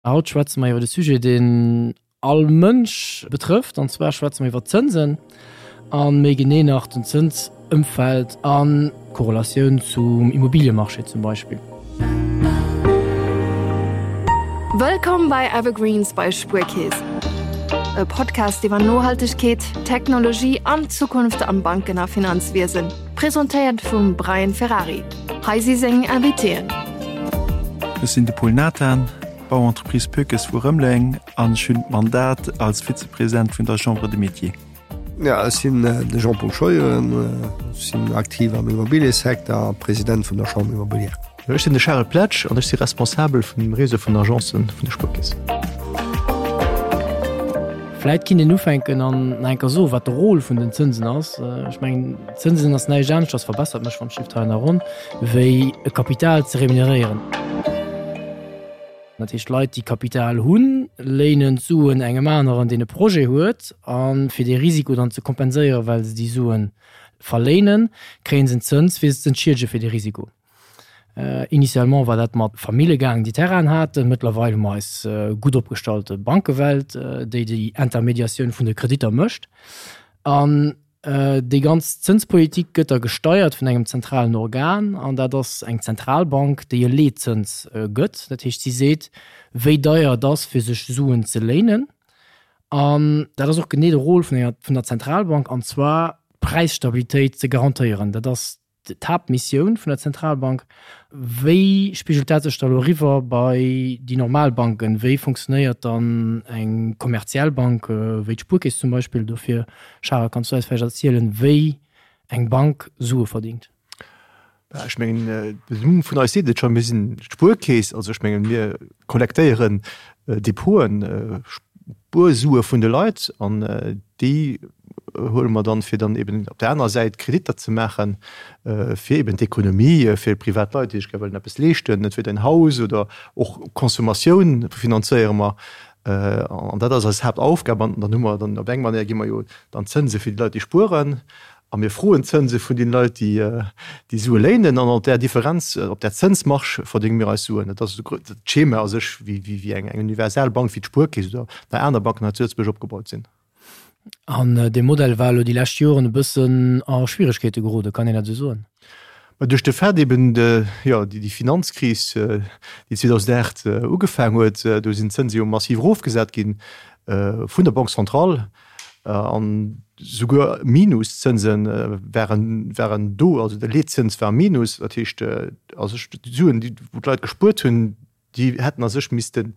Haut schwätze mer iwwer e Sujet, deen all Mënsch betrëfft, an zwar schwätze mer iwwer d'Zënsen a méi genee nach den Zënsëmfeld a Korrelatioun zum Immobiliemarché zum Beispill. Wëllkomm bei Evergreens bei Spuerkeess, e Podcast iwwer Nohaltegkeet, Technologie an d'Zukunft am Banken a Finanzwiesen. Presentéiert vum Brian Ferrari. Hei si seng Invitéen. Ech sinn de Paul Nathan, Bauentreprise Poeckes vu Rëmeleng an ech hunn d'Mandat als Vizepresident vun der Chambre des Métiers. Jo, ech sinn de Jean-Paul Scheuren, ech sinn aktiv am Immobiliësecteur a President vun der Chambre immobilière. Ech sinn de Charel Pletsch an ech si Responsabel vun dem Réseau vun Agencen vun der Spuerkeess. Vläit kinnt een ufänken an nach eng Kéier soen, wat de Rôle vun den Zënsen ass. Ech mengen, Zënsen ass näischt aneschters, verbessert mech wann ech hei nach ronn, wéi e Kapital ze remuneréieren. Dat heescht, Leit, déi Kapital hunn, léinen d'Suen engem aneren, deen e Projet huet, a fir dee Risiko dann ze kompenséieren, well se déi Sue verléinen, kréie se en Zëns, fir se ze entschiedege fir dee Risiko. Initialement war dat mat Famille gaangen, déi Terrainen haten. Mëttlerweil hu mer eis gutt opgestallte Bankewelt, déi déi Intermediatioun vun de Kreditter mécht. An déi ganz Zënspolitik gëtt da gesteiert vun engem zentralen Organ, an dat ass eng Zentralbank, déi e Leetzëns gëtt. Dat heescht, si seet, wéi deier et ass, fir sech Suen ze léinen. An dat ass och genee de Rôle vun enger, vun der Zentralbank, an zwar d'Präisstabilitéit ze garantéieren. Dat ass d'Haaptmissioun vun der Zentralbank. Wéi spigelt dat sech da elo eriwwer bei déi normal Banken? Wéi funktionéiert dann eng kommerziell Bank wéi d'Spuerkeess zum Beispill? Dofir, Charel, kanns du eis vläicht erzielen, wéi eng Bank Sue verdingt? Ech mengen, den Numm vun eis seet et schonn, mir sinn d'Spuerkeess. Also ech mengen, mir kollektéieren Depoten, Spuersue vun de Leit an déi huele mer dann, fir dann eben op där anerer Säit Kreditter ze maachen, fir eben d'Ekonomie, fir privat Leit, déi sech gär wëllen eppes leeschten, entweder en Haus oder och Consommatioun finanzéiere mer. An dat ass eis Haaptaufgab. An dann hu mer dann op eng Manéier gi mer jo dann Zënse fir déi Leit, déi spueren, a mir froen Zënse vun deene Leit, déi déi Sue léinen. An op där Differenz, op där Zënsmarge verdénge mir eis Suen. Dat ass d'Schema a sech, wéi eng universal Bank wéi d'Spuerkeess oder nach aner Banken hei zu Lëtzebuerg opgebaut sinn. An dee Modell war elo déi lescht Joren e bëssen a Schwieregkeete geroden, kann een dat esou soen? Mä duerch de Fait eben, jo, déi Finanzkris, déi 2008 ugefaang huet, do sinn d'Zënse jo massiv erofgesat gi vun der Banque centrale an souguer Minuszënse waren, waren do, also de Leetzëns war minus. Dat heescht, a sech d'Suen, déi wou d'Leit gespuert hunn, déi hätten a sech missten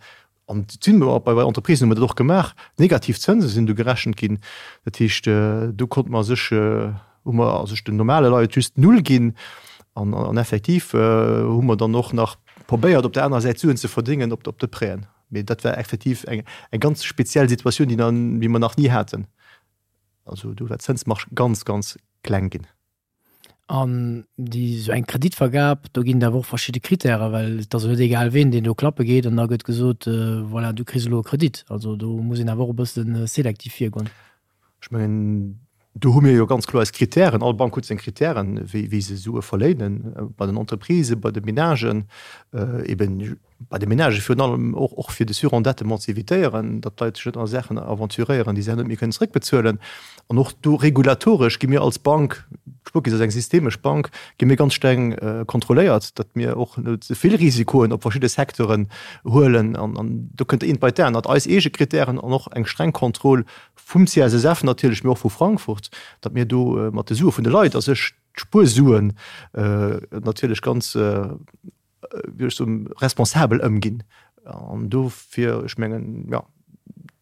An et sinn och bei Entreprisen hu mer dat och gemaach, negativ Zënse sinn do gerechent ginn. Dat heescht, do konnte mer a sech, hu mer a sech den normale Leit just null ginn. An an effektiv hu mer dann och nach probéiert, op der anerer Säit Suen ze verdéngen op de Prêten. Mee dat war effektiv eng eng ganz speziell Situatioun, déi déi mer nach ni haten. Also do war d'Zënsmarge ganz, ganz kleng ginn. An déi esou eng Kreditvergab, do ginn et awer och verschidde Krittären, well et ass jo net egal ween, deen do klappe geet an da gëtt gesot, voilà, du kriss elo e Kredit. Also do muss een awer och e bësse selektiv virgoen. Ech mengen, do hu mir jo ganz kloer eis Krittären. All Bank huet seng Krittären, wéi wéi se Sue verléinen, bei den Entreprisen, bei de Menagen, eben Bei de Menagë virun allem och, och fir de Surendettement ze evitéieren, datt d'Leit sech net a Saachen aventuréieren, déi se herno net méi kënnen zeréckbezuelen. An och do regulatoresch gi mir als Bank, d'Spuerkeess ass eng systemesch Bank, gi mir ganz streng kontrolléiert, datt mir och net ze vill Risikoen op verschidde Secteuren huelen. An, an do kënnt eent bei d'anert, eis eege Krittären an och eng streng Kontroll vum CSSF natierlech, mee och vu Frankfurt, datt mir do mat de Sue vun de Leit a sech d'Spuersuen natierlech ganz, wéi ech soen, responsabel ëmginn. An dofir, ech mengen, jo,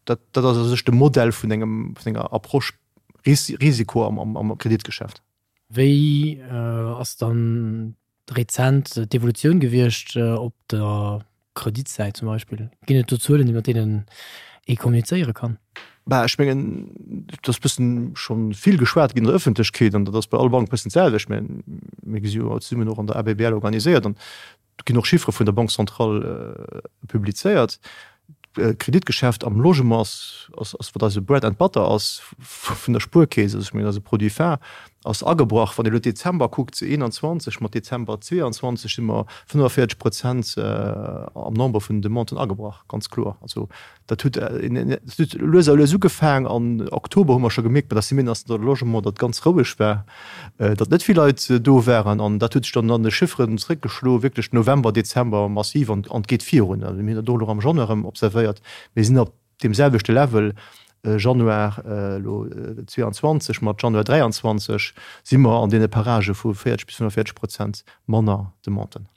dat, dat ass a sech de Modell vun engem, vun enger Approche Ris Risiko am, am, am Kreditgeschäft. Wéi ass dann rezent d'Evolutioun gewiescht op der Kreditsäit zum Beispill? Ginn et do Zuelen, iwwer deenen ee kommunizéiere kann? Bah, ech mengen, et ass bëssen scho vill geschwat ginn an der Ëffentlechkeet an dat ass bei all Bank bëssen d'selwecht. Mä mir si jo zesummen och an der ABBL organiséiert an do ginn och Chiffere vun der Banque centrale publizéiert. D'Kreditgeschäft am Logement ass, ass, ass wat eise Bread and Butter ass vun der Spuerkeess. Also ech mengen, dat ass e Produit phare. Ass agebrach. Wann ee elo Dezember kuckt, 21 mat Dezember 22, si mer 45 Prozent am Nombre vun den Demanden agebrach, ganz kloer. Also dat huet lues a lues ugefaang. An Oktober hu mer scho gemierkt bei der Semaine nationale du logement, datt ganz roueg war, datt net vill Leit do waren. An dat huet sech dann an de Chifferen zréckgeschloen, wierklech November, Dezember massiv an et geet virun. Also mir hunn dat och elo am Januar erëm observéiert. Mir sinn op deem selwechte Level Januar elo 22 mat Januar 23 si mer an deene Paragë vu 40 bis 45 Prozent manner Demanden.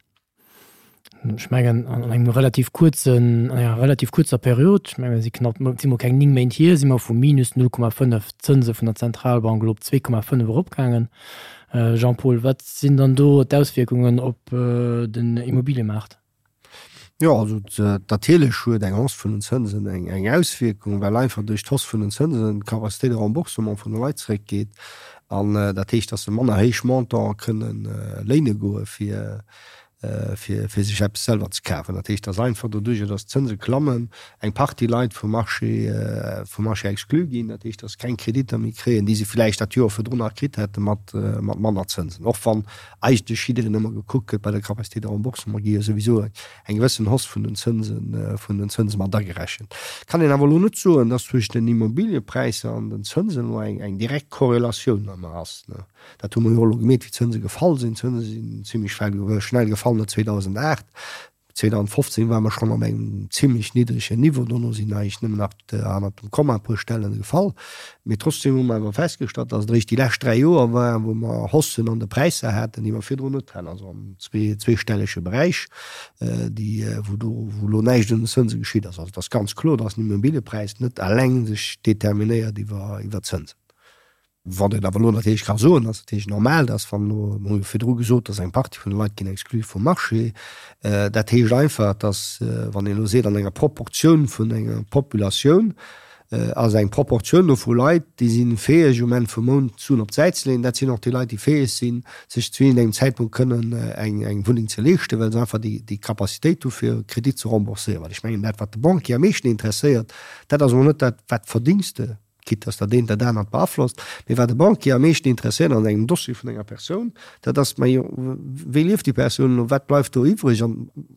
Ech mengen an engem relativ kuerzen, an enger relativ kuerzer Period, ech mengen et si knapp, et si mol keng 9 Méint hier, si mer vu minus 0,5 Zënse vun der Zentralbank elo op 2,5 eropgaangen. Jean-Paul, wat sinn dann do d'Auswierkungen op den Immobiliëmaart? Jo, also natierlech huet eng Hausse vun den Zënsen eng Auswierkung, well einfach duerch d'Hausse vun den Zënsen d'Capacité de remboursement vun de Leit zeréckgeet. An dat heescht, datt se manner héich Montantë kënnen léine goe fir fir sech eppes selwer ze kafen. Dat heescht, datt einfach doduerjer, datt d'Zënse klammen, eng Partie Leit vum Marché vum Marché exclu ginn. Dat heescht, datt se keng Kreditter méi kréien, déi se vläicht dat Joer virdrun nach kritt hätte mat manner Zënsen. Och wann eigentlech jiddereen ëmmer gekuckt gëtt bei der Capacité de remboursement, gi jo souwisou eng gewëssen Hausse vun den Zënsen, vun den Zënse mat agerechent. Kann een awer elo net soen, dass zwëschen den Immobiliëpräisser an den Zënsen elo eng, eng direkt Korrelatioun ëmmer ass. Dat hu mer jo och elo gemierkt, wéi d'Zënse gefall sinn. D'Zënse sinn zimlech schnell gefall no 2008. 2015 ware mer schonn op engem zimlech niddregen Niveau, dono sinn eigentlech nëmmen nach hannert dem Komma e puer Stellen gefall. Mee trotzdem hu mer awer festgestallt, dass et eréischt déi lescht 3 Joer waren, wou mer Haussen an de Präisser haten, déi mer virdrun net haten, also am zweestellege Beräich, déi, wou do, wou elo näischt un den Zënse geschitt ass. Also et ass ganz kloer, dass den Immobiliëpräis net eleng sech determinéiert iwwer d'Zënsen. Wat een awer elo natierlech ka soen, ass natierlech normal, dass wann elo, mer hu jo virdru gesot, dass eng Partie vun de Leit ginn exclu vum Marché, dat heescht einfach, dass wann een elo seet an enger Proportioun vun enger Populatioun ass eng Proportioun do vu Leit, déi si fäeg um Enn vum Mount Suen op d'Säit ze leeën, dat sinn och déi Leit, déi fäeg sinn, sech zu iergendengem Zäitpunkt kënnen eng Wunneng ze leeschten, well se einfach déi Capacitéit hu fir e Kredit ze rembourséieren. Well ech mengen, dat wat de Banquier am meeschten interesséiert, dat ass elo net dat, wat verdéngs de, quitte dass dat eent dat anert beaflosst, mee wat de Banquier am meeschten interesséiert an engem Dossier vun enger Persoun, dat ass, majo, wéi lieft déi Persoun elo, wat bleift do iwwreg an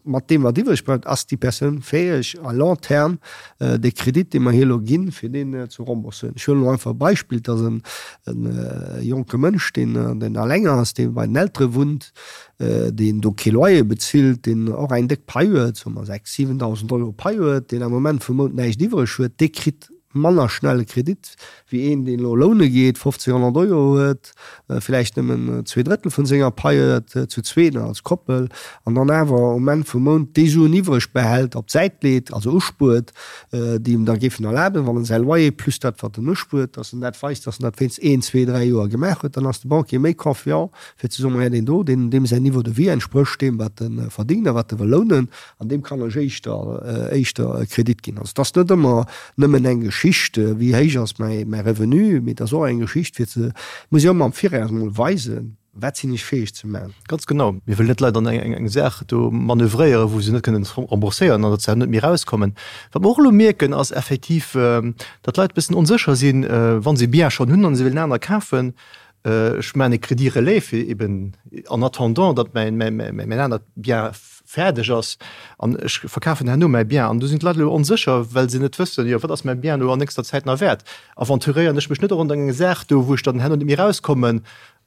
mat deem wat iwwreg bleift, ass déi Persoun fäeg à long terme dee Kredit, dee mer hir elo ginn, fir deen ze rembourséieren. Ech huelen elo einfach e Beispill, et ass e jonke Mënsch, deen alleng ass, dee bei den Eltere wunnt, deen do kee Loyer bezilt, deen och eng déck Pai huet, soe mer 6.000, 7.000 Euro Pai huet, deen am Moment vum Mount näischt iwwreg huet, dee kritt manner schnell e Kredit wéi een, deen elo loune geet, 15 100 Euro huet, villäicht nëmmen zweedrëttel vun senger Pai huet, zu zwee als Koppel, an dann awer um Enn vum Mount déi Suen iwwreg behält, op d'Säit leet, also uspuert, déi em da géifen erlaben, wann en säi Loyer plus dat, wat en uspuert, dass en dat weist, dass en dat wéinst een, zwee, dräi Joer gemaach huet, dann ass de Banquier méi confiant, fir ze soen, Maja, deen do, deen, deem säin Niveau de vie entsprécht deem, wat e verdéngt a wat e wëll lounen. An deem kann ech éischter, éischter e Kredit ginn. Also et ass net ëmmer nëmmen eng Geschicht, wéi héich ass mäi, mäi Revenu, mee et ass och eng Geschicht fir ze, muss ech ëmmer am Viraus emol weisen, wat sinn ech fäeg ze maachen. Ganz genau. Mir wëllen net d'Leit an eng, eng Saach do manövréieren, wou se net kënnen rembourséieren an datt se net méi erauskommen. Wat mer och elo mierken, ass effektiv, datt d'Leit e bëssen onsécher sinn, wa se e Bien schonn hunn an se wëllen aner kafen, Ech maachen e Crédit relais fir eben en attendant, datt mäin anert Bien fäerdeg ass an ech verkafen herno mäi Bien. An do sinn d'Leit elo onsécher, well se net wëssen, jo wat ass mäi Bien elo an nächster Zäit nach wäert? Aventuréieren ech mech net och an eng Saach do, wou ech dann herno net méi erauskommen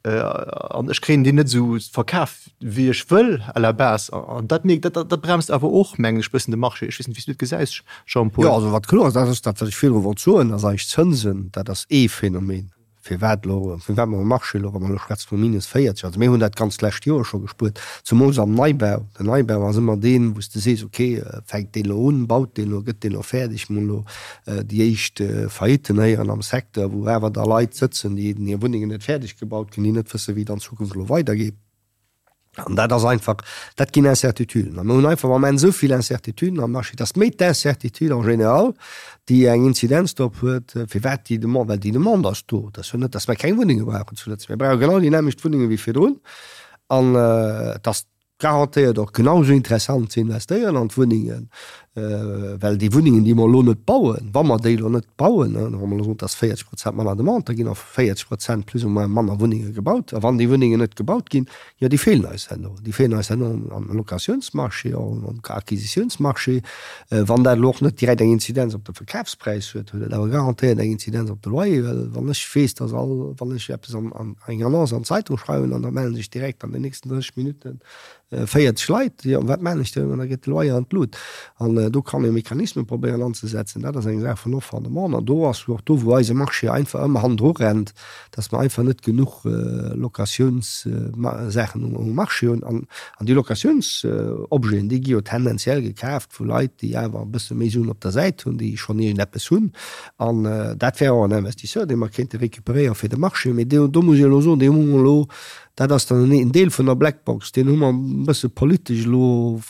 an ech kréien deen net esou verkaf, wéi ech wëll à la base. An dat mierkt, dat dat bremst awer och, mengen ech, bëssen de Marché. Ech weess net, wéi s du et gesäis, Jean-Paul. Jo, also wat kloer ass, dat ass dat, wat ech virdru wollt soen, ass eigentlech d'Zënsen, dat ass ee Phänomen. Firwat elo, firwat mer um Marché elo, wa mer elo schwätze vu minus 40, also mir hunn dat ganz d'lescht Joer scho gespuert, zumools am Neibau. Den Neibau ass ëmmer deen, wou s de sees, okay, fänkt deen elo un, baut deen elo, gëtt deen elo fäerdeg? Mir hunn elo déi éischt Faillitten héieren am Secteur, wou awer da Leit sëtzen, déi hir Wunnengen net fäerdeg gebaut kréien, déi net wëssen, wéi et an Zukunft elo weidergeet. An dat ass einfach, dat ginn Incertituden. A mir hunn einfach am Moment esou vill Incertituden am Marché, dass méi d'Incertitude en général, déi eng Inzidenz drop huet, firwat déi Demande, well déi Demande ass do. Et ass jo net, dass mer keng Wunnenge brauchen zu Lëtzebuerg. Mir brauche genau déi nämmlecht Wunnenge wéi virdrun. An et ass garantéiert och genau esou interessant ze investéieren an d'Wunnengen. Well déi Wunnengen, déi mer elo net bauen, wa mer déi elo net bauen, wa mer elo soen, et ass 40 Prozent manner Demande, da ginn och 40 Prozent plus ou moins manner Wunnenge gebaut. A wann déi Wunnengen net gebaut ginn, jo, déi feelen eis herno. Déi feelen eis herno am Locatiounsmarché, och am Acquisitiounsmarché. Wann dat elo och net direkt eng Inzidenz op de Verkafspräis huet, huet et awer garantéiert eng Inzidenz op de Loyer. Well wann ech weess, dass all, wann ech eppes an eng Annonce an d'Zeitung schreiwen an da mellen sech direkt an den nächsten 30 Minutten 40 Leit, jo, wat maan ech dann? An da geet de Loyer an d'Lut. An do kann ee Mechanisme probéieren anzesetzen. Dat ass eng Saach vun Offre an Demande. An do ass och do, wou eise Marché einfach ëmmer hannendru rennt, dass mer einfach net genuch Locatiounssaachen um Marché hunn. An déi Locatiounsobjeten, déi gi jo tendenziell gekaaft vu Leit, déi awer e bësse méi Suen op der Säit hunn, déi schonn iergendeppes hunn. An dat wär och en Investisseur, dee mer kéinte récupéréieren fir de Marché. Mee do muss ech elo soen, dee hu mer elo Dat ass dann en Deel vun der Blackbox, deen hu mer e bësse politesch elo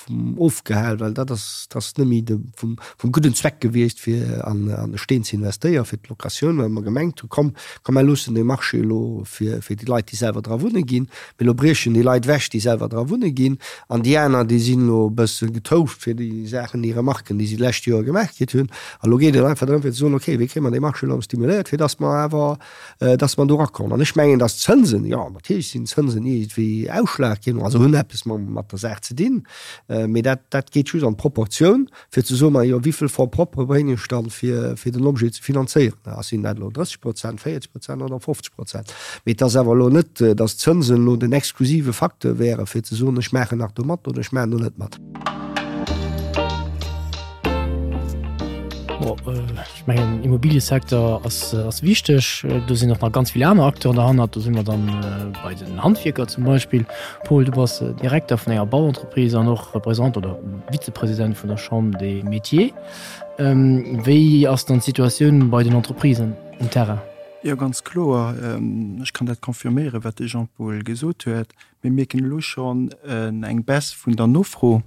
ofgehal, well dat ass, dat ass net méi de vum, vum gudden Zweck gewiescht, fir an, an de Steen ze investéieren, fir d'Locatioun, well mer gemengt hu komm, komm mer loossen dee Marché elo fir, fir déi Leit, déi selwer dra wunne ginn. Mee elo briechen déi Leit ewech, déi selwer dra wunne ginn, an déi aner, déi sinn elo e bësse getouft fir déi Saachen, déi Remarken, déi si d'lescht Joer gemaach kritt hunn. A lo geet et einfach drëm, fir ze soen, okay, wéi kréie mer dee Marché elo erëm stimuléiert, fir datt mer awer, dass mer do erakommen. An ech mengen, dass d'Zënsen, jo, natierlech sinn d'Zënsen iergendwéi ausschlaggebend, also hunn eppes mat der Saach ze dinn, mee dat, dat geet just an d'Proportioun, fir ze soen, ma jo, wéi vill Fonds propres bréngen ech dann, fir, fir den Objet ze finanzéieren? Sinn dat elo 30 Prozent, 40 Prozent oder 50 Prozent? Mee et ass awer elo net, dass d'Zënsen elo den exklusive Facteur wären, fir ze soen, ech maachen nach do mat oder ech maachen do net mat. Bon, ech mengen, Immobiliësecteur ass, ass wichteg. Do sinn och nach ganz vill aner Acteuren derhannert. Do si mer dann bei den Handwierker zum Beispill. Paul, du bass Direkter vun enger Bauentreprise an och Représentant oder Vizepresident vun der Chambre des Métiers. Wéi ass dann d'Situatioun bei den Entreprisen um Terrain? Jo, ganz kloer. Ech kann dat confirméieren, wat de Jean-Paul gesot huet. Mir mierken elo schonn eng Baisse vun der Nofro.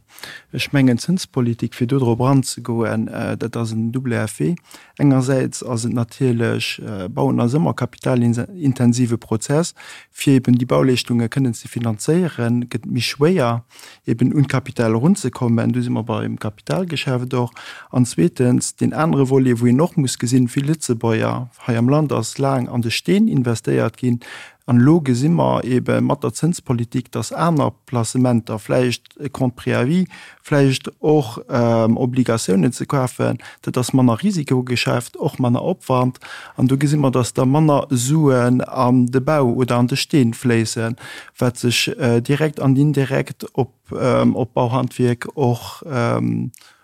Ech mengen, d'Zënspolitik, fir do drop eranzegoen, dat ass en double effet. Engersäits ass et natierlech, Bauen ass ëmmer kapitalintensive Prozess. Fir eben déi Bauleeschtunge kënnen ze finanzéieren, gëtt et méi schwéier, eben un d'Kapital erunzekommen. Do si mer beim Kapitalgeschäft och. An zweetens, deen anere Volet, wou een och muss gesinn, Vill Lëtzebuerger hei am Land ass laang an de Steen investéiert ginn. An elo gesi mer eebe mat der Zënspolitik, dass aner Placementer, vläicht e Compte préavis, vläicht och Obligatiounen ze kafen, dat ass manner Risikogeschäft, och manner Opwand. An do gesi mer, dass da manner Suen an de Bau oder an de Steen fléissen, wat sech direkt an indirekt op d'Bauhandwierk och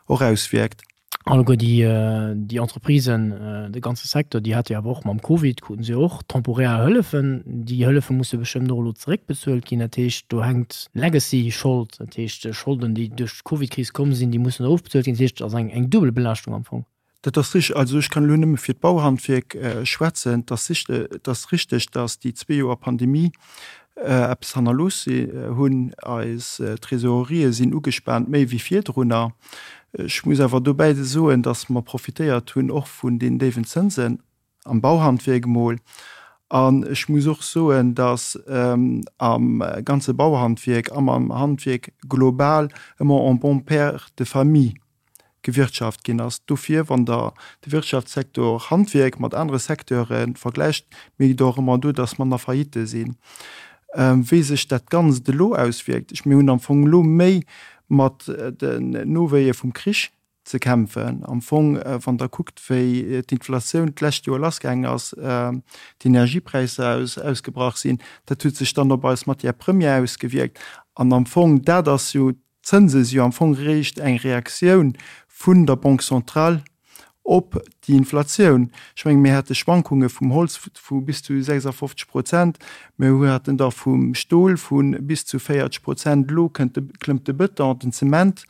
auswierkt. Alleguer déi, déi Entreprisen, de ganze Secteur, déi hate jo awer och mam Covid, kruten se jo och temporär Hëllefen. Déi Hëllefe musse bestëmmt och elo zeréckbezuelt ginn. Dat heescht, do hänkt Legacy-Schold, dat heescht Scholden, déi duerch d'Covidkris komm sinn, déi mussen ofbezuelt ginn. Dat heescht, et ass eng, eng duebel Belaaschtung am Fong. Dat ass richtig. Also ech kann elo nëmme fir d'Bauhandwierk schwätzen. Et ass et ass richtig, datt déi zwee Joer Pandemie eppes hannerlooss hunn. Eis Trésorerië sinn ugespaant, méi wéi virdrunner. Ech muss awer dobäi soen, datt mer profitéiert hunn och vun den déiwen Zënsen am Bauhandwierk emol. An ech muss och soen, datt am ganze Bauhandwierk an am Handwierk global ëmmer en bon père de famille gewirtschaft ginn ass. Dofir, wann Der de Wirtschaftssektor Handwierk mat anere Secteure vergläicht, mierkt Der och ëmmer do, dass manner Faillitte sinn. Wéi sech dat Ganzt elo auswierkt, ech, mir hunn am Fong elo méi mat den Nowéie vum Krich ze kämpfen. Am Fong, wann Der kuckt, wéi d'Inflatioun d'lescht Joer lassgaangen ass, d'Energiepräisser ausgebrach sinn, dat huet sech dann op eis Matières premières ausgewierkt. An am Fong, dat ass jo D'Zënse si jo am Fong eréischt eng Reaktioun vun der Banque centrale op déi Inflatioun. Ech mengen, mir hate Schwankunge vum Holz vu bis zu 56 Prozent, mir haten der vum Stol vu bis zu 40 Prozent, elo kënnt de, klëmmt de Bëton, den Zement.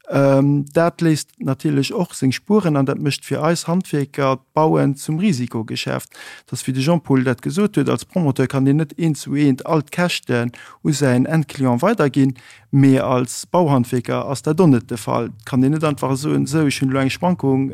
Dat léisst natierlech och seng Spueren an dat mécht fir eis Handwierker d'Bauen zum Risikogeschäft. Et ass wéi de Jean-Paul dat gesot huet, als Promoteur kann een net eent zu eent all d'Käschten u säin Endclient weiderginn. Mee als Bauhandwierker ass dat och net de Fall. Et kann een net einfach soen, esou ech hunn elo eng Schwankung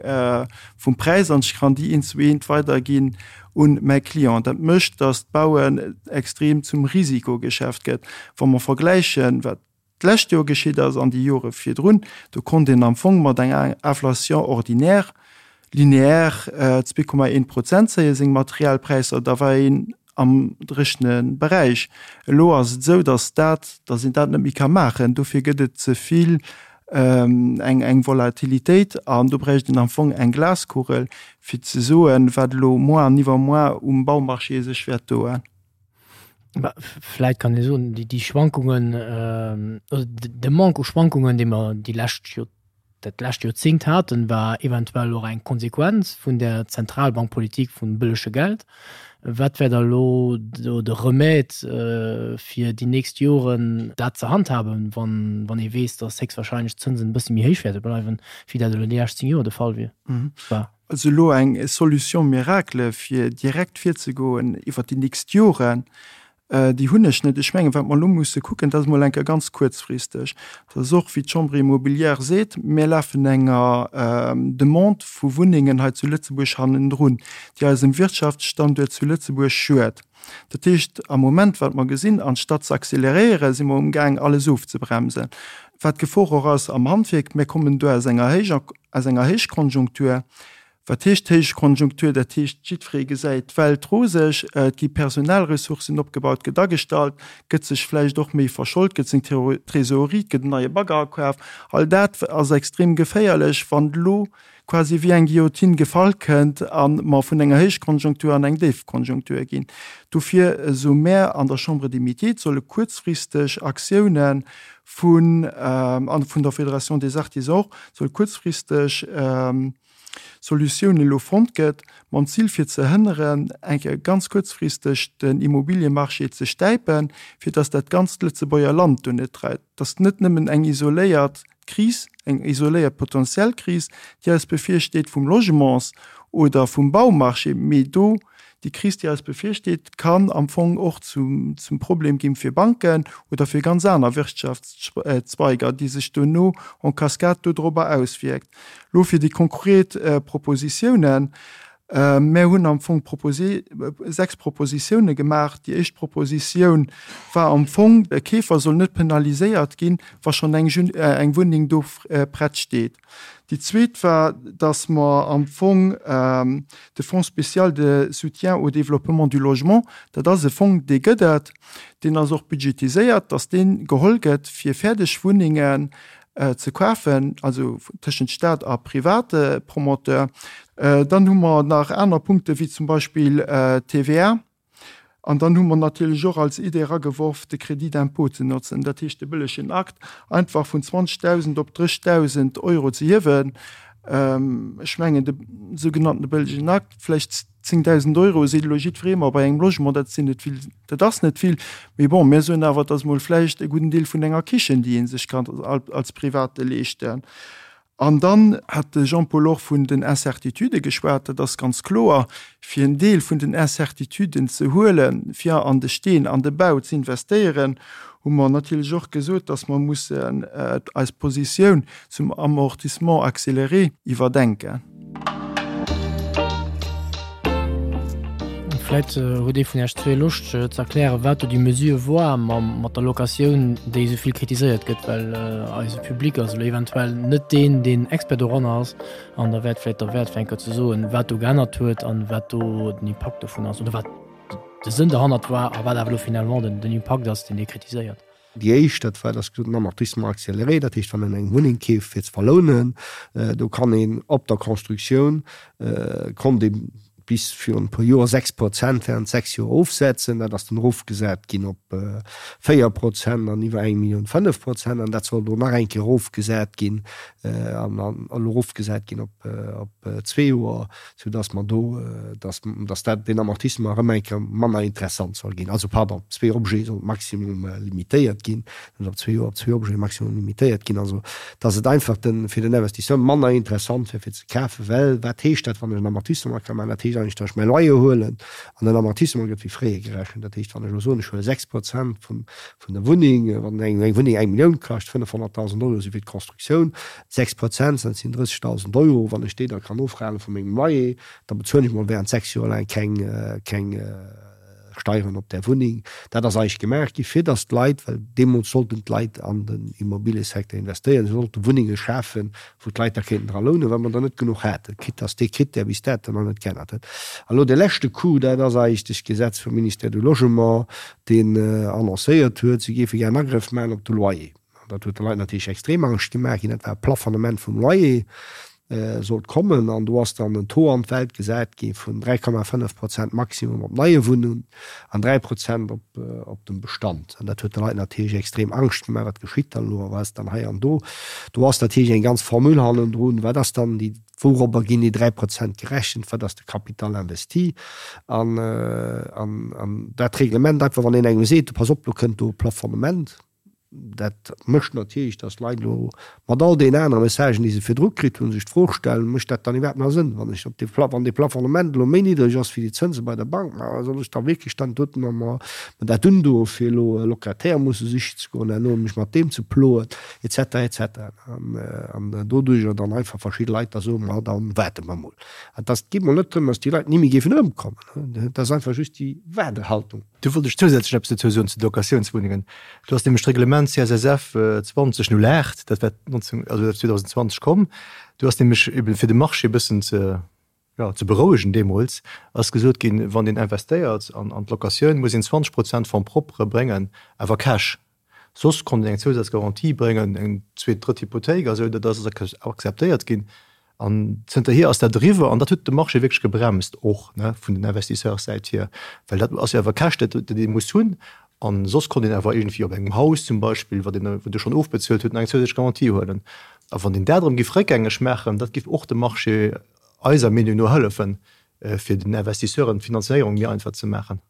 vum Präis an ech kann déi eent zu eent weiderginn un mäi Client. Dat mécht, datt d'Bauen extrem zum Risikogeschäft gëtt. Wa mer vergläichen, wat. d'lescht Joer geschitt ass an déi Jore virdrun, do konnt een am Fong mat enger Inflation ordinaire linéaire 2,1 Prozent zéie seng Materialpräisser, da war een am dréchene Beräich. Elo ass et esou, datt dat, datt een dat net méi ka maachen. Dofir gëtt et ze vill eng eng Volatilitéit an do bräicht een am Fong eng Glaskugel, fir ze soen, wat elo moar an iwwermoar um Baumarché sech wäert doen. Vläit kann ee soen, déi Schwankungen, oder de Manque u Schwankungen, dee mer déi lescht Joer, dat lescht Joerzéngt haten, war eventuell och eng Konsequenz vun där Zentralbankpolitik vum bëllege Geld. Wat wär da elo do de Remède, fir déi nächst Joren dat ze handhaben, wann ee weess, datt héchstwahrscheinlech d'Zënsen e bësse méi héich wäerte bleiwen, wéi dat elo déi lescht 10 Joer de Fall wier, war? Also elo eng Solution miracle, fir direkt virzegoen iwwert déi nächst Joren, Déi hunn ech net. Ech mengen, wat mer elo musse kucken, dat ass emol eng Kéier ganz kuerzfristeg, dat ass och, wéi d'Chambre immobilière seet, mir lafen enger Demande vu Wunnengen hei zu Lëtzebuerg hannendrun, déi eisem Wirtschaftsstanduert zu Lëtzebuerg schued. Dat heescht, am Moment, wat mer gesinn, anstatt ze accéléréieren, si mer umgaang, alles ofzebremsen. Wat d'Gefor och ass am Handwierk, mir kommen do aus enger Héich, aus enger Héichkonjunktur, Wat heescht Héichkonjunktur? Dat heescht, jiddweree gesäit d'Welt roseg, et gi Personalressourcen opgebaut, gëtt agestallt, gëtt sech vläicht och méi verscholt, gëtt seng Trésorerie, et gëtt en neie Bagger akaf. All dat ass extrem geféierlech, wann elo quasi wéi eng Guillotine gefall kënnt a mer vun enger Héichkonjunktur an eng Déifkonjunktur ginn. Dofir soe mär an der Chambre des Métiers, et solle kuerzfristeg Aktiounen vun, a vun der Fédération des Artisans och, soll kuerzfristeg Solutioun elo fonnt gëtt, mam Zil fir ze hënneren, eng Kéier ganz kuerzfristeg den Immobiliemarché ze stäipen, fir datt dat ganzt Lëtzebuerger Land do net dreift. Datt net nëmmen eng isoléiert Kris, eng isoléiert potentiell Kris, déi eis bevirsteet vum Logements oder vum Baumarché, mee do déi Kris, déi eis bevirsteet, kann am Fong och zum Problem ginn fir Banken oder fir ganz aner Wirtschaftszweiger, déi sech duerno en cascade dodrobber auswierkt. Lo fir déi konkret Propositiounen. Mär hunn am Fong 6 Propositiounen gemaach. Déi éischt Propositioun war am Fong, de Keefer soll net penaliséiert ginn, wa schonn eng Wunneng do prett steet. Déi zweet war, dass mer am Fong de Fonds spécial de soutien au développement du logement, dat ass e Fong, dee gëtt et, deen ass och budgetiséiert, dass dee geholl gëtt, fir fäerdeg Wunnengen ze kafen, also tëschent Staat a private Promoteur. Dann hu mer nach aner Punkte wéi zum Beispill d'TVA. An dann hu mer natierlech och als Idee erageworf, de Crédit d'impôt ze notzen, dat heescht de bëllegen Akt einfach vun 20.000 op 30.000 Euro ze hiewen. Ech mengen, de sougenannte bëllegen Akt, vläicht 10.000 Euro seet elo jiddweree, ma bei engem Logement, dat sinn net vill, dat ass net vill. Mee bon, mir soen awer, et ass emol vläicht e gudden Deel vun enger Kichen, déi ee sech kann als Private leeschten. An dann hat de Jean-Paul och vun den Incertitudë geschwat. Dat ass ganz kloer, fir en Deel vun den Incertituden ze huelen, fir an de Steen, an de Bau ze investéieren, hu mer natierlech och gesot, dass mer mussen eis Positioun zum Amortissement accéléré iwwerdenken. Vläit huet ee vun Iech zwee Loscht ze erklären, wat do déi Mesure war mat der Locatioun, déi esou vill kritiséiert gëtt, well eise Public ass elo eventuell net deen, deen Expert doranner ass. An da wär et vläicht derwäert, fir eng Kéier ze soen, wat do geännert huet an wat do den Impakt dovun ass oder wat de Sënn derhannert war a wat awer elo finalement den Impakt ass, deen Dir kritiséiert. Déi éischt, dat war das den Amortissement accéléré, dat heescht, wann een eng Wunneng keeft fir ze verlounen, do kann een op der Constructioun, konnt ee bis virun e puer Joer 6 Prozent während 6 Joer ofsetzen. Dat ass dann erofgesat ginn op 4 Prozent an iwwer eng Millioun 5 Prozent an dat soll elo nach eng Kéier erofgesat ginn an elo erofgesat ginn op zwee Joer. sou dass mer do, dass, dass dat, deen Amortissement erëm eng Kéier manner interessant soll ginn. Also, pardon, op zwee Objete soll d'Maximum limitéiert ginn, net op zwee Joer, op zwee Objete maximum limitéiert ginn. Also, dass et einfach de, fir den Investisseur manner interessant wär fir ze kafen, well wat heescht dat, wann ech en Amortissement ka maachen? Dat heescht eigentlech, dass ech mäi Loyer huelen an den Amortissement gëtt wéi fréier gerechent. Dat heescht, wann ech elo soen, ech huele 6 Prozent vun, vun der Wunneng, wann eng, eng Wunneng eng Millioun kascht, 500.000 Euro si fir d'Constructioun, 6 Prozent, dat sinn 30.000 Euro. Wann ech déi da kann ofrahne vu mengem Loyer, da bezuelen ech mol während 6 Joer laang keng, keng. Steieren op där Wunneng. Dat ass eigentlech gemaach gi fir datt d'Leit, well deemools sollten d'Leit an den Immobiliësecteur investéieren, se sollte Wunnenge schafen, wou d'Leit da kéinten dra lounen, well mer der net genuch haten, quitte datt dee Krittär bis dato nach net geännert huet. An elo dee leschte Coup, dat ass eigentlech d'Gesetz vum Ministère du Logement, deen annoncéiert huet, se géife gär en Agrëff maachen op de Loyer. An dat huet de Leit natierlech extrem Angscht gemaach ginn. Dat war e Plafonnement vum Loyer sollt kommen. An do ass dann en Taux an d'Welt gesat gi vun 3,5 Prozent Maximum op neie Wunnungen an 3 Prozent op dem Bestand. An dat huet de Leit natierlech extrem Angscht gemaach, wat geschitt dann elo a wat ass dann hei an do. Do ass natierlech eng ganz Formule hannendrun, wat ass dann déi, wourobber ginn déi 3 Prozent gerechent, wat ass de Capital investi. An dat Reglement einfach, wann een engem seet, pass op, do kënnt do e Plafonnement, Dat mécht natierlech, datt d'Leit elo mat all deenen anere Messagen, déi se virdru kritt hunn, sech d'Fro stellen, Mécht dat dann iwwerhaapt nach Sënn, wann ech op dee Pla-, wann dee Plafonnement elo méi niddreg ass wéi déi Zënse bei der Bank, ma soll ech da wierklech dann doten mer mer dat undoen, fir elo e Locataire musse sichen ze goen, herno mech mat deem ze ploen, et cetera, et cetera. An doduerjer dann einfach verschidde Leit da soen, Ma da waarde mer mol. An et ass, et geet mol net drëm, datt déi Leit ni méi géifen erëmkommen, et ass einfach just déi Waardehaltung. Do wollt ech zousätzlech eppes dozou soen zu de Locatiounswunnengen. Do ass nämlech d'Reglement CSSF 2008, dat war 19, also dat ass 2020 komm, do ass nämlech eben fir de Marché e bëssen ze, jo, ze berouegen deemools, ass gesot ginn, wann een investéiert an an d'Locatioun, muss een 20 Prozent Fonds propre bréngen, awer cash. Soss konnt een eng Zousazgarantie bréngen, eng zweet, drëtt Hypothéik a sou, dat ass akzeptéiert ginn. An zënterhier ass dat eriwwer an dat huet de Marché wierklech gebremst, och vun den Investisseurssäit hier, well dat ass jo awer Käscht, dat ee muss hunn. A soss konnt een awer iergendwéi op engem Haus zum Beispill, wat een, wat ee schonn ofbezuelt huet, nach eng zousätzlech Garantie huelen. A wann een dat erëm géif réckgängeg maachen, dat géif och dem Marché eiser Meenung no hëllefen, fir den Investisseuren d'Finanzéierung méi einfach ze maachen.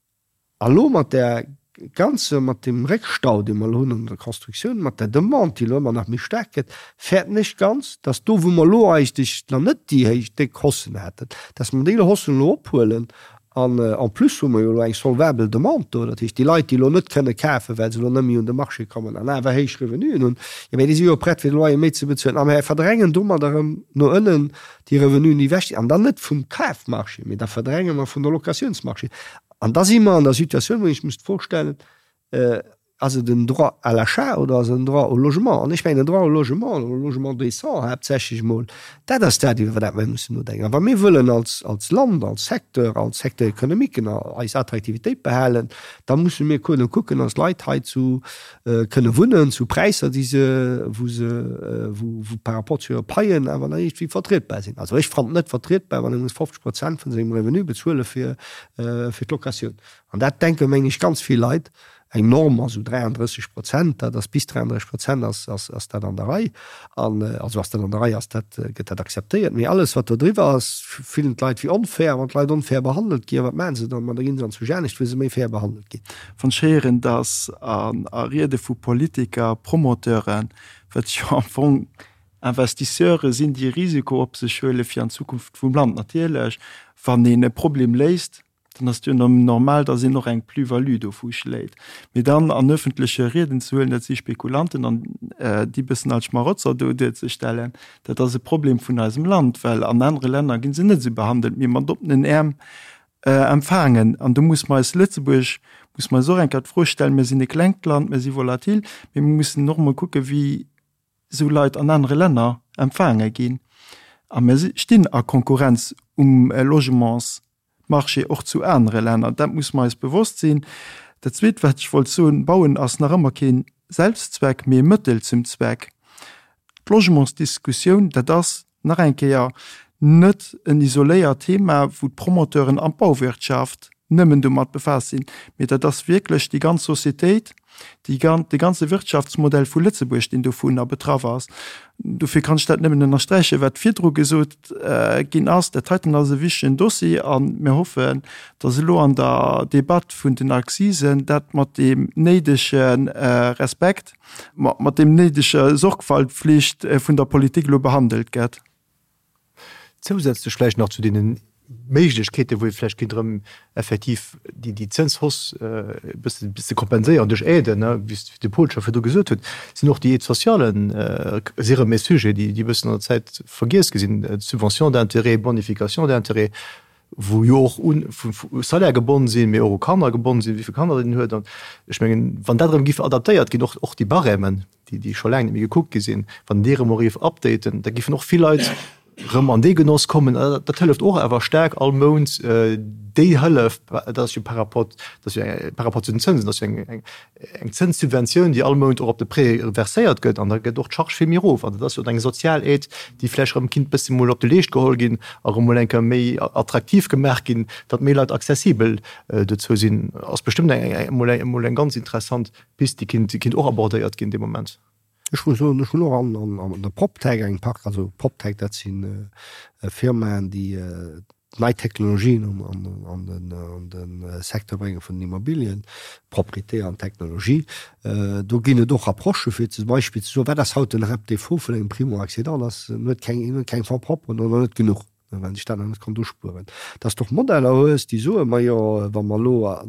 A lo mat där ganzer, mat deem Réckstau, dee mer elo hunn an der Constructioun, mat der Demande, déi elo ëmmer nach méi staark gëtt, fäerten ech ganz, dass do, wou mer elo eigentlech nach net déi héich, déck Haussen haten, dass mer déi Haussen elo ophuelen. An en plus hu mer jo elo eng solvabel Demande do. Dat heescht, déi Leit, déi elo net kënne kafen, well se elo net méi un de Marché kommen an awer héich Revenuen hunn, jo, mä déi si jo prett, fir de Loyer méi ze bezuelen. A mer verdrängen domat erëm no ënnen déi Revenuen, déi ewech sinn, an dann net vum Kafmarché, mee da verdränge mer vun der Locatiounsmarché. An da si mer an der Situatioun, wou ech muss d'Fro stellen, Ass et en Droit à l'achat oder ass et en Droit au logement? An ech mengen, en Droit au logement, au logement décent haaptsächlech emol, dat ass dat, iwwer dat mer mussen nodenken. A wa mir wëllen als, als Land, als Secteur, als Secteur économique eis Attraktivitéit behalen, da musse mir kënnen kucken, dass d'Leit hei zu kënne wunnen zu Präisser, déi se, wou se, wou, wou par rapport zu hire Paien awer nach iergendwéi vertrietbar sinn. Also ech fannen et net vertrietbar, wann ee muss 50 Prozent vun sengem Revenu bezuele fir, fir d'Locatioun. An dat denke meng ech ganz vill Leit. Eng Norm ass esou 33 Prozent, dat ass bis 33 Prozent ass, ass, ass dat an der Rei. An, also ass dat an der Rei, ass dat, gëtt dat akzeptéiert. Mee alles wat do driwwer ass, fillen d'Leit wéi onfair. Wann d'Leit onfair behandelt ginn, wat maache se dann? Ma da ginn se an zu anescht, wou se méi fair behandelt ginn. Wann ech héieren, datt a Riede vu Politiker, Promoteuren, wat jo am Fong Investisseure sinn, déi e Risiko op sech huele fir an d'Zukunft vum Land, natierlech, wann een e Problem léist, dann ass et jo normal, datt een och eng Plus-value dovu schléit. Mee dann an öffentleche Rieden ze huelen, dat si Spekulanten an déi bëssen als Schmarotzer do duerzestellen, dat ass e Problem vun eisem Land, well an anere Länner gi se net esou behandelt, mee mat oppenen Äerm empfaangen. An do muss mer eis Lëtzebuerg, muss mer eis och eng Kéier d'Fro stellen, mir sinn e klengt Land, mir si volatil, mee mir mussen och emol kucken, wéi esou Leit an anere Länner empfaange ginn. A mir stinn a Konkurrenz um Logementsmarché och zu anere Länner. Dat muss mer eis bewosst sinn. Dat Zweet, wat ech wollt soen, Bauen ass nach ëmmer kee Selbstzweck, mee e Mëttel zum Zweck. D'Logementsdiskussioun, dat ass Nach eng Kéier, net en isoléiert Thema, wou d'Promoteuren an d'Bauwirtschaft nëmmen domat befaasst sinn, mee dat ass wierklech déi ganz Societéit, déi gan, de ganze Wirtschaftsmodell vu Lëtzebuerg, deen dovunner betraff ass. Dofir kann ech dat nëmmen ënnersträichen, wat virdru gesot ginn ass. Dat heiten ass e wichtegen Dossier a mir hoffen, dass elo an der Debatt vun den Accisen dat mat deem néidege Respekt, mat deem néidege Sorgfaltpflicht vun der Politik elo behandelt gëtt. Zousätzlech vläicht nach zu deene Méiglechkeeten, wou ee vläicht kéint erëm effektiv déi Zënshausse e bësse ze kompenséieren duerch Aiden, wéi de Paul scho virdru gesot huet, sinn och déi Aides sociales si erëm e Sujet, déi e bëssen an der Zäit vergiess gi sinn, Subventions d'intérêt, Bonifications d'intérêt. Wou jo och un u Salaire gebonn sinn, mee och u Kanner gebonn sinn, wéi vill Kanner een huet. An ech mengen, wann dat erëm giff adaptéiert ginn, och och déi Barèmen, déi déi scho laang net méi gekuckt gi sinn, wann déi erëm och giff updaten, da giffen och vill Leit erëm an dee Genoss kommen. Dat hëlleft och awer staark all Mount déi Hëllef, dat ass jo par rapport, dat ass jo par rapport zu den Zënsen, dat ass jo eng eng eng Zënssubventioun, déi all Mount och op de Prêt verséiert gëtt, an da gëtt och d'Charge vill méi erof. An dat ass jo eng sozial Aide, déi vläicht erëm kinnt bëssi mol op de Leescht geholl ginn a erëm mol eng Kéier méi attraktiv gemaach ginn, datt méi Leit accessibel dozou sinn. Ass bestëmmt eng mol eng mol eng ganz interessant Pist, déi kinnt déi kinnt och abordéiert ginn dee Moment. Ech muss soen, ech hunn och an an der PropTech eng Park, also PropTech, dat si Firmaen, déi nei Technologien an de Secteur brénge vun den Immobilien, Propriété an Technologie. Do ginn et och Approchë fir zum Beispill ze soen, wat ass haut den Haaptdéfaut vun engem Primo-Accédant, ass en huet keng, en huet keng Fonds propres oder net genuch, well sech dat nach net konnt uspueren. Dass de och Modeller hues, déi soen, majo wa mer elo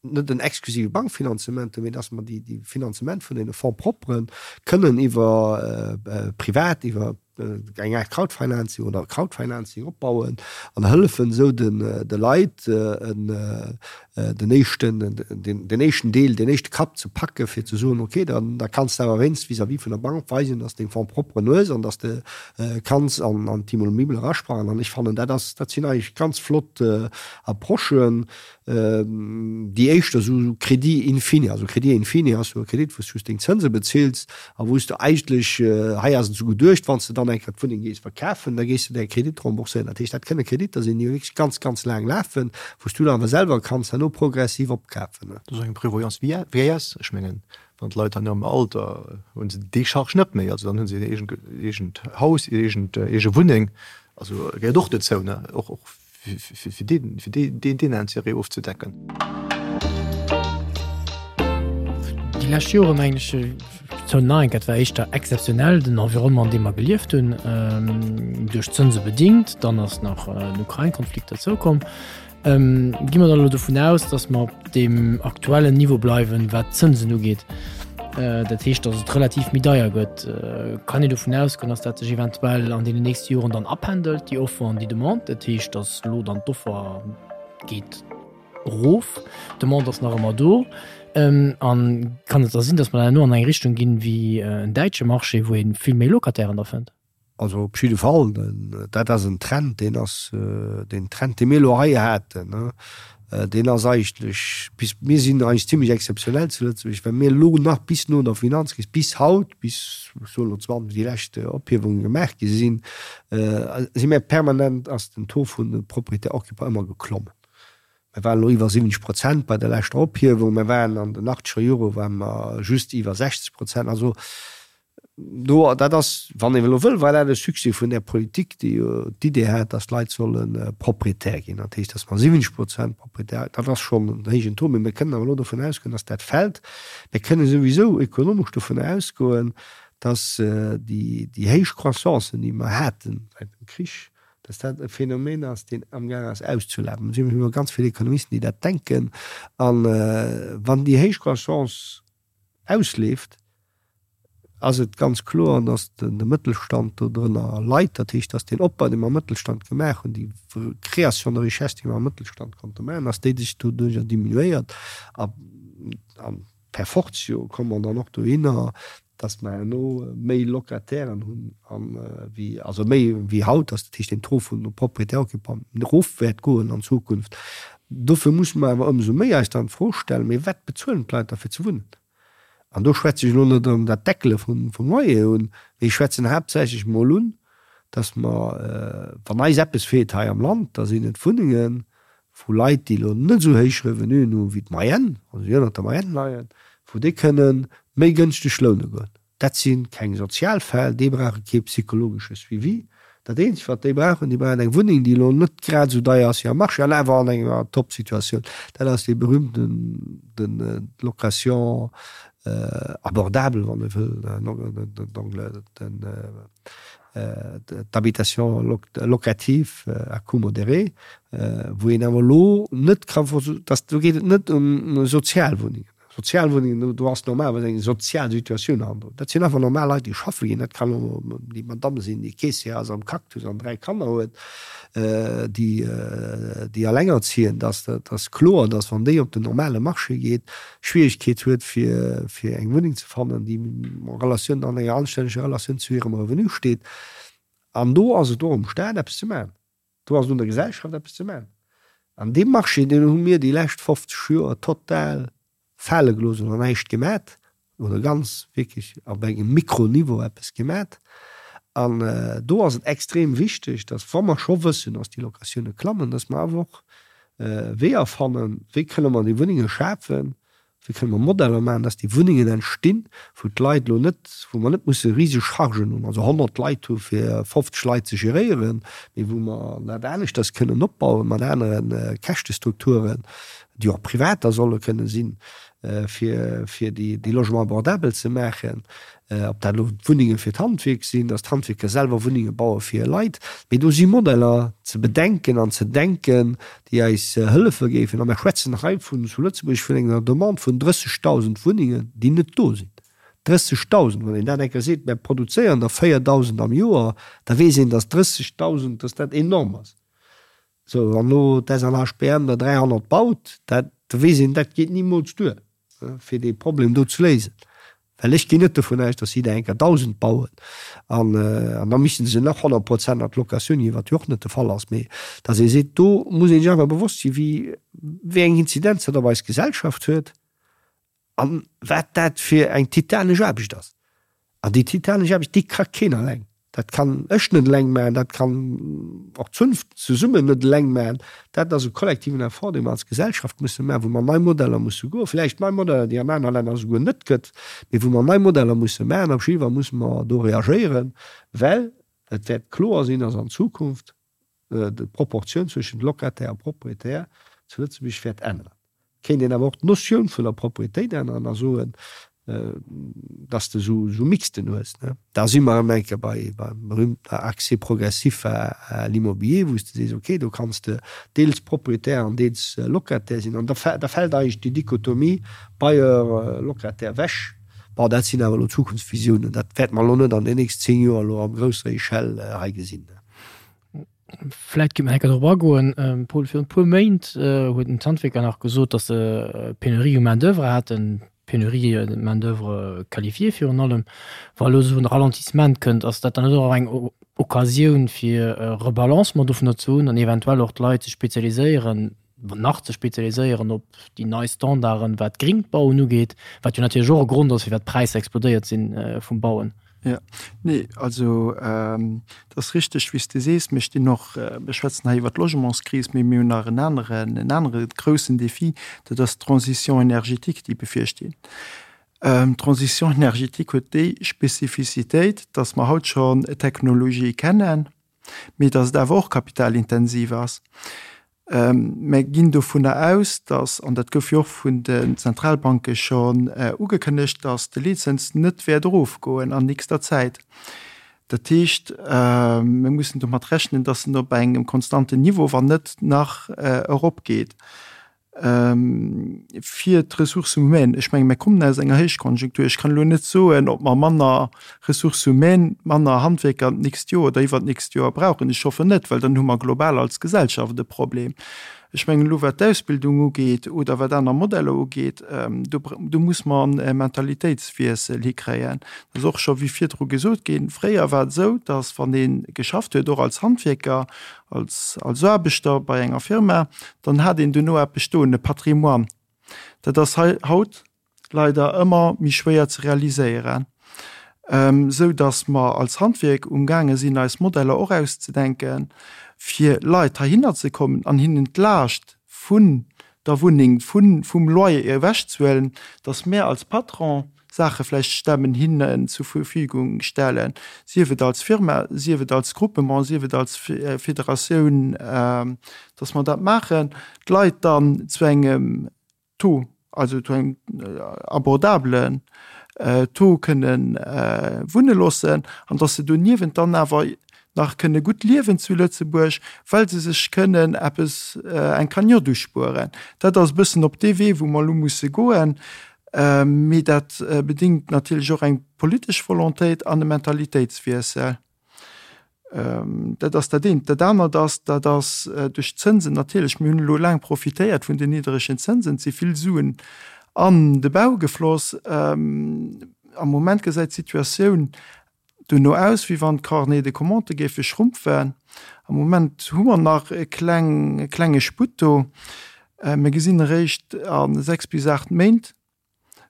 net en exklusive Bankfinanzement hunn, mee dass mer déi Finanzement vun deene Fonds propres kënnen iwwer privat, iwwer eng Aart Crowdfinancing oder Crowdfinancing opbauen an hëllefen esou de Leit den éischten, den éischten Deel, den éischte Kapp ze packe fir ze soen, okay, dann da kanns de awer wéinst vis-à-vis vun der Bank weisen, dass de deng Fonds propren hues an dass de kanns an d'Immobilie erasprangen. An ech fannen, dat ass, dat sinn eigentlech ganz flott Approchen, Déi éischter esou Crédit in fine, also Crédit in fine ass jo e Kredit, wou s du just deng Zënse bezills a wou s du eigentlech, hei ass et esou geduecht, wann s de dann eng Kéier d'Wunneng gees verkafen, da gees de däi Kredit rembourséieren. Dat heescht, dat kënne Kreditter sinn, déi wierklech ganz, ganz laang lafen, wou s du dann awer selwer kanns herno progressiv opkafen. Dat ass eng Prévoyance vieillesse. Ech mengen, wann d'Leit dann am Alter hu se déi Charge net méi, also dann hu se hir eegent Haus, hir eege Wunneng, also gehéiert och dozou, ne, och fir deen Intérêt ofzedecken. Déi lescht Jore mengen ech, 2009, dat war éischter exzeptionell, den Environnement, an deem mer gelieft hunn, duerch d'Zënse bedingt, dann ass nach den Ukrain-Konflikt derzoukomm. Gi mer dann elo dovun aus, datt mer op deem aktuellen Niveau bleiwen, wat d'Zënsen ugeet, dat heescht, datt et relativ méi deier gëtt? Kann een dovun ausgoen, datt dat sech eventuell an deenen nächste Joren dann apendelt, déi Offer an déi Demande? Dat heescht, datt elo dann d'Offer geet erof, d'Demande ass nach ëmmer do. An kann et da sinn, datt mer dann herno an eng Richtung ginn, wéi en däitsche Marché, wou ee vill méi Locatairen da fënnt? Also op jidde Fall, dat ass en Trend, deen ass, deen Trend, dee mir elo hei haten, deen ass eigentlech bis, mir sinn eigentlech zimlech exzeptionell zu Lëtzebuerg, well mir elo nach bis no der Finanzkris, bis haut, bis, ech soen elo 20, déi lescht Ophiewunge gemaach gi sinn, si mir permanent, ass den Taux vun de Propriétaires occupants ëmmer geklommen. Mir waren elo iwwer 70 Prozent bei der leschter Ophiewung, mir waren an den achtzeger Jore ware mer just iwwer 60 Prozent. Also Do, dat ass, wann een elo wëll, war dat e Succès vun där Politik, déi jo d'Idee hat, datt d'Leit solle Proprietär ginn. Dat heescht, datt mer 70 Prozent Proprietär, dat ass schonn en héijen Taux, mee mir kënnen awer elo dovun ausgoen, datt dat fält. Mir kënnen souwisou ekonomesch dovun ausgoen, datt déi, déi héich Croissancen, déi mer haten säit dem Krich, datt dat e Phänomen ass, deen amgaang ass auszulafen. Et si jo ganz vill Ekonomisten, déi dat denken. A wann déi héich Croissance ausleeft, ass et ganz kloer, datt de Mëttelstand dodrënner leit. Dat heescht, datt deen Opbau, dee mer am Mëttelstand gemaach hunn, déi Création de richesse, déi mer am Mëttelstand konnte maachen, datt déi sech doduerjer diminuéiert. A per fortio komme mer dann och dohinner, datt mer herno méi Locatairen hunn wéi, also méi wéi haut, datt dat heescht den Taux vun de Propriétaires occupants erof wäert goen an Zukunft. Dofir musse mer awer ëmsou méi eis dann d'Fro stellen, Mee wat bezuelen d'Leit da fir ze wunnen? An do schwätze ech elo net erëm dat Deckele vum Loyer un, mee ech schwätzen haaptsächlech emol un, dass mer, wann eis eppes feelt hei am Land, da sinn et Wunnenge vu Leit, déi elo net esou héich Revenuen hu wéi d'Moyenne, also déi ënnert der Moyenne leien, wou déi kënne méi gënschteg loune goen. Dat si keng sozial Fäll, déi brauche kee psychologesche Suivi. Dat eenzegt, wat déi brauchen, déi brauchen eng Wunneng, déi elo net grad esou deier ass wéi am Marché an awer an enger Top-Situatioun. Dat ass dee berühmten, den, d'Location abordable, wann ee wëll, den, d'Habitation locative à coût modéré, wou een awer elo net ka, do geet et net ëm Sozialwunnengen. Sozialwunnengen, do ass normalerweis eng sozial Situatioun hannendrun. Dat sinn einfach normal Leit, déi schaffe ginn. Dat kann och déi Madamm sinn, déi Caissière ass am Cactus an 3 Kanner huet, déi, déi allengerziehend ass. Dat ass kloer, dass, wann déi op den normale Marché geet, Schwierigkeet huet, fir, fir eng Wunneng ze fannen, déi en Relatioun, an enger anstänneger Relatioun zu hirem Revenu steet. An do ass et och um Staat, eppes ze maachen. Do ass et un der Gesellschaft eppes ze maachen. An dee Marché, deen hu mir déi lescht 50 Joer total fale gelooss oder näischt gemat oder ganz wierklech op engem Mikroniveau eppes gemat. An do ass et extrem wichteg, datt, wa mer scho wëssen, datt déi Locatioune klammen, datt mer awer och Weeër fannen, wéi kënne mer déi Wunnenge schafen, Wéi kënne mer Modeller maachen, dass déi Wunnengen entstinn, wou d'Leit elo net, wou mer net musse riseg Chargen hunn, also 100 Leit hu fir 50 Leit ze geréieren, mee wou mer dat aneschters kënnen opbauen, mat anere Käschtestrukturen, déi och privat da solle kënne sinn, fir, fir déi, déi Logements abordables ze maachen. Ob dat elo Wunnenge fir d'Handwierk sinn, dass d'Handwierker selwer Wunnenge baue fir hir Leit, mee do si Modeller ze bedenken an ze denken, déi eis hëllefe géifen. A mer schwätzen hei vun, zu Lëtzebuerg vun enger Demande vun 30.000 Wunnengen, déi net do sinn. 30.000! Wann een dat eng Kéier seet, mer produzéieren der 4.000 am Joer, da weess een, dass 30.000, dass dat enorm ass. Sou, wann elo d'SNHBM der 300 baut, dat, da weess een, dat geet nimools duer, fir dee Problem do ze léisen. Well ech ginn net dovun aus, datt si der eng Kéier 1.000 bauen an, an da misste se nach 100 Prozent an d'Locatioun ginn, wat jo och net de Fall ass. Mee datt ee seet, do muss ee sech einfach bewosst sinn, wéi, wéi eng Inzidenz dat op eis Gesellschaft huet an wat dat fir eng titanesch Aarbecht ass. An déi titanesch Aarbecht, déi ka keen eleng. Dat kann ech net eleng maachen, dat kann och d'Zunft zesummen net eleng maachen. Dat ass e kollektiven Effort, dee mer als Gesellschaft musse maachen, wou mer nei Modeller musse goen, vläicht nei Modeller, déi an aner Länner esouguer net gëtt, mee wou mer nei Modeller musse maachen. Op jidde Fall musse mer do reagéieren, well et wäert kloer sinn, dass an Zukunft d'Proportioun zwëschent Locataire a Propriétaire zu Lëtzebuerg wäert änneren. Kéint een awer och d'Notioun vun der Proprietéit änneren a soen, dass de esou Mixten hues. Da si mer erëm eng Kéier bei beim berühmten Accès progressif à l'immobilier, wou s de sees, okay, do kanns de deels Propriétaire an deels Locataire sinn. An da fält eigentlech déi Dichotomie Bailleur-Locataire ewech. Bon, dat sinn awer elo Zukunftsvisiounen, dat wäerte mer elo net an den nächsten 10 Joer elo a grousser Echelle hei gesinn. Vläit kéint mer enker drop agoen, Paul, virun e puer Méint huet den d'Handwierker nach gesot, datt se Penurie u Main d'oeuvre haten, Penurie de main d'oeuvre qualifiée virun allem. Wa elo esou en Ralentissement kënnt, ass dat dann net och eng Occasioun fir e Rebalancement dovunner ze hunn an eventuell och d'Leit ze spezialiséieren, nach ze spezialiséieren op déi nei Standarden, wat gréngt Bauen ugeet, wat jo natierlech och e Grond ass, firwat d'Präisser explodéiert si vum Bauen? Jo, nee, also et ass richteg, wéi s de sees. Mir stinn och, mir schwätzen hei iwwert d'Logementskris, mee mir hunn nach en aneren, en anere groussen Défi, dat ass d'Transition énergétique, déi bevirsteet. D'Transition énergétique huet déi Spezifizitéit, dass mer haut schonn Technologië kennen, mee dass et awer och kapitalintensiv ass. Mer ginn dovunner aus, dass, an dat gouf jo och vun den Zentralbanke schonn ugekënnegt, dass de Leetzëns net wäert erofgoen an nächster Zäit. Dat heescht, mir mussen domat rechnen, dass en op engem konstanten Niveau, wann net nach eropgeet. Fir d'Ressources humaines, ech menge mir kommen aus enger Héichkonjunktur, ech kann elo net soen, ob mer manner Ressources humaines, manner Handwierker d'nächst Joer oder iwwert d'nächst Joer brauchen. Ech hoffen net, well dann hu mer global als Gesellschaft e Problem. Ech mengen elo wat d'Ausbildung ugeet oder wat aner Modeller ugeet, do do muss mer e Mentalitéitswiessel hikréien. Dat ass och scho wéi virdru gesot ginn, fréier war et esou, datt wann ee geschafft huet, och als Handwierker, als als Aarbechter bei enger Firma, dann hat een duerno eppes stoen, e Patrimoine. Dat ass hei haut leider ëmmer méi schwéier ze realiséieren, esou datt mer als Handwierk umgaange sinn eis Modeller och auszedenken, fir Leit heihinner ze kommen an hinnen d'Laascht vun der Wunneng, vun vum Loyer ewechzehuelen, datt mär als Patron Saache vläicht stemmen, hinnen zur Verfügung stellen, sief et als Firma, sief et als Groupement, sief et als Federatioun, datt mer dat maachen, d'Leit dann zu engem Taux, also zu engem abordabelen Taux kënne wunne loossen an datt se doniewent dann awer nach kënne gutt liewen zu Lëtzebuerg, well se sech kënnen eppes, eng Cagnotte uspueren. Dat ass e bëssen op dee Wee, wou mer elo musse goen. Mee dat bedingt natierlech och eng politesch Volontéit an e Mentalitéitswiessel. Dat ass dat eent. Dat anert ass, dat ass duerch d'Zënsen natierlech, mir hunn elo laang profitéiert vun den niddregen Zënsen, et si vill Suen an de Bau gefloss. Am Moment gesäit d'Situatioun dono aus, wéi wann d'Carnets de commandes géife schrumpfen. Am Moment hu mer nach e kleng, e klenge Sputt do. Mir gesinn eréischt a 6 bis 8 Méint,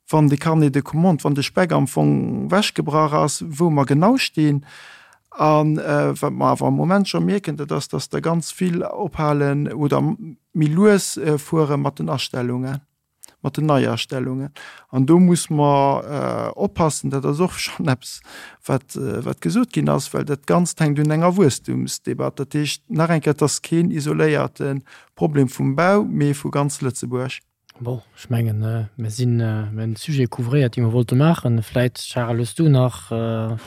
wann de Carnet de commandes, wann de Speck am Fong wechgebrach ass, wou mer genau stinn. A wat mer awer am Moment scho mierken, dat ass, dass der ganz vill ophalen oder méi lues fuere mat den Astellungen, mat den Neiastellungen. An do muss mer oppassen, dat ass och schonn eppes, wat, wat gesot ginn ass, well dat Ganzt hänkt un enger Wuesstumsdebatt. Dat heescht, nach eng Kéier, et ass keen isoléierte Problem vum Bau, mee vu ganz Lëtzebuerg. Bon, ech mengen, mir sinn, mir hunn de Sujet couvréiert, dee mir wollte maachen. Vläit, Charel, hues du nach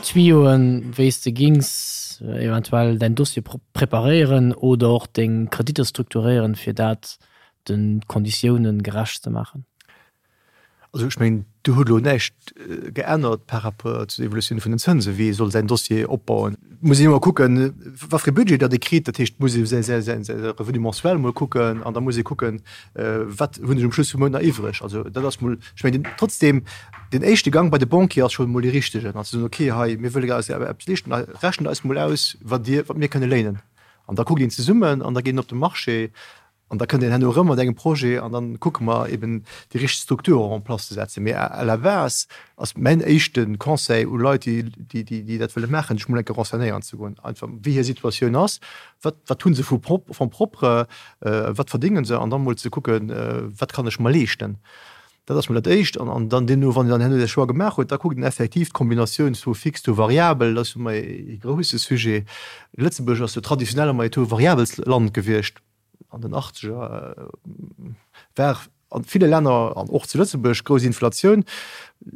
Tuyauxen, wéi s de gings eventuell däin Dossier preparéieren oder och deng Kreditter strukturéieren, fir dat de Konditiounen gerecht ze maachen? Also ech mengen, do huet elo näischt geännert par rapport zu der Evolutioun vun den Zënsen, wéi ee soll säin Dossier opbauen. Et muss een ëmmer kucken, wat fir e Budget datt ee kritt. Dat heescht, et muss ee säi Revenu mensuel emol kucken an da muss ee kucken, wat hunn ech um Schluss vum Mount nach iwwreg. Also dat ass mol, ech mengen, trotzdem, den éischte Gang bei de Banquier ass schonn emol dee richtegen, an ze soen, okay, hei, mir wëlle eis eppes leeschten, rechent eis mol aus, wat Dir, wat mir kënne léinen. An da kuckt een zesummen an da geet een op de Marché. An da kënnt een herno erëm mat engem Projet an dann kucke mer eben déi richteg Struktur och en place ze setzen. Mee à la base ass mäin éischte Conseil u Leit, déi, déi dat wëlle maachen, sech mol eng Kéier renseignéieren ze goen, einfach wéi hir Situatioun ass, wat, wat hu se vu Fonds propre, wat verdénge se, an da mol ze kucken, wat kann ech mer leeschten. Dat ass mol dat Éischt. An dann deemno, wann een dann herno säi Choix gemaach huet, da kuckt een effektiv d'Kombinatioun Taux fixe, Taux variabel. Dat ass jo ëmmer ee grousse Sujet. Lëtzebuerg ass jo traditionell ëmmer ee Taux variabels Land gewiescht. An den Achtzeger war a ville Länner an och zu Lëtzebuerg grouss Inflatioun.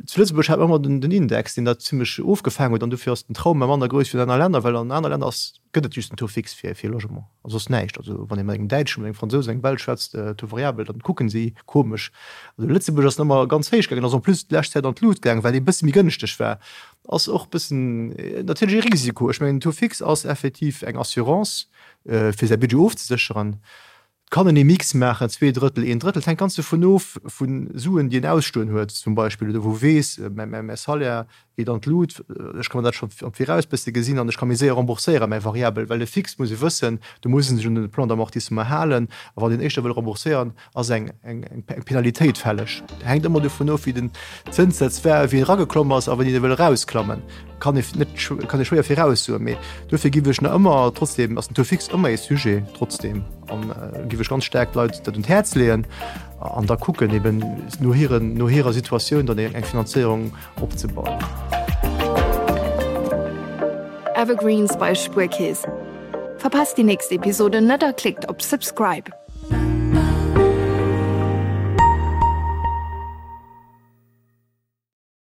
Zu Lëtzebuerg hat mer ëmmer den Index, deen dat zimlech ofgefaangen huet. An dofir ass den Trauma manner grouss wéi an aner Länner, well an aner Länner ass, gëtt et just den Taux fixe fir fir Logement a soss näischt. Also wann ee mat engem Däitschen, mat engem Fransous, engem Belsch schwätzt, Taux variabel, dann kucken si komesch. Also Lëtzebuerg ass ëmmer ganz héich gaangen, ass en plus d'lescht Zäit an d'Lut gaangen, well e bësse méi gënschteg war. Ass och bëssen natierlech e Risiko. Ech mengen den Taux fixe ass effektiv eng Assurance fir säi Budget ofzesécheren. Et kann een ee Mix maachen, 2 Drëttel, een Drëttel. Et hänkt ganz dovun of, vu Suen, déi een ausstoen huet zum Beispill, oder wou weess, mäi Salaire geet an d'Lut, ech ka mer dat scho am Viraus bësse gesinn an ech ka méi séier rembourséieren, mäi Variabel. Well e Fixe muss ee wëssen, do muss ee sech un de Plan d'amortissement halen a wann een éischter wëll rembourséieren, ass eng Penalitéit fälleg. Hänkt ëmmer dovun of, wéi den Zënssaz war, wéi en erageklomm ass a wéini e wëll erausklammen. Kann ee net, kann ee schwéier viraussoen, mee dofir giff ech nach ëmmer, trotzdem ass den Taux fixe ëmmer ee Sujet, trotzdem an giff ech ganz staark d'Leit dat un d'Häerz leeën an da kucken eben no hiren, no hirer Situatioun dann eng Finanzéierung opzebauen. Evergreens bei Spuerkeess. Verpasst déi nächst Episode net a klickt op Subscribe.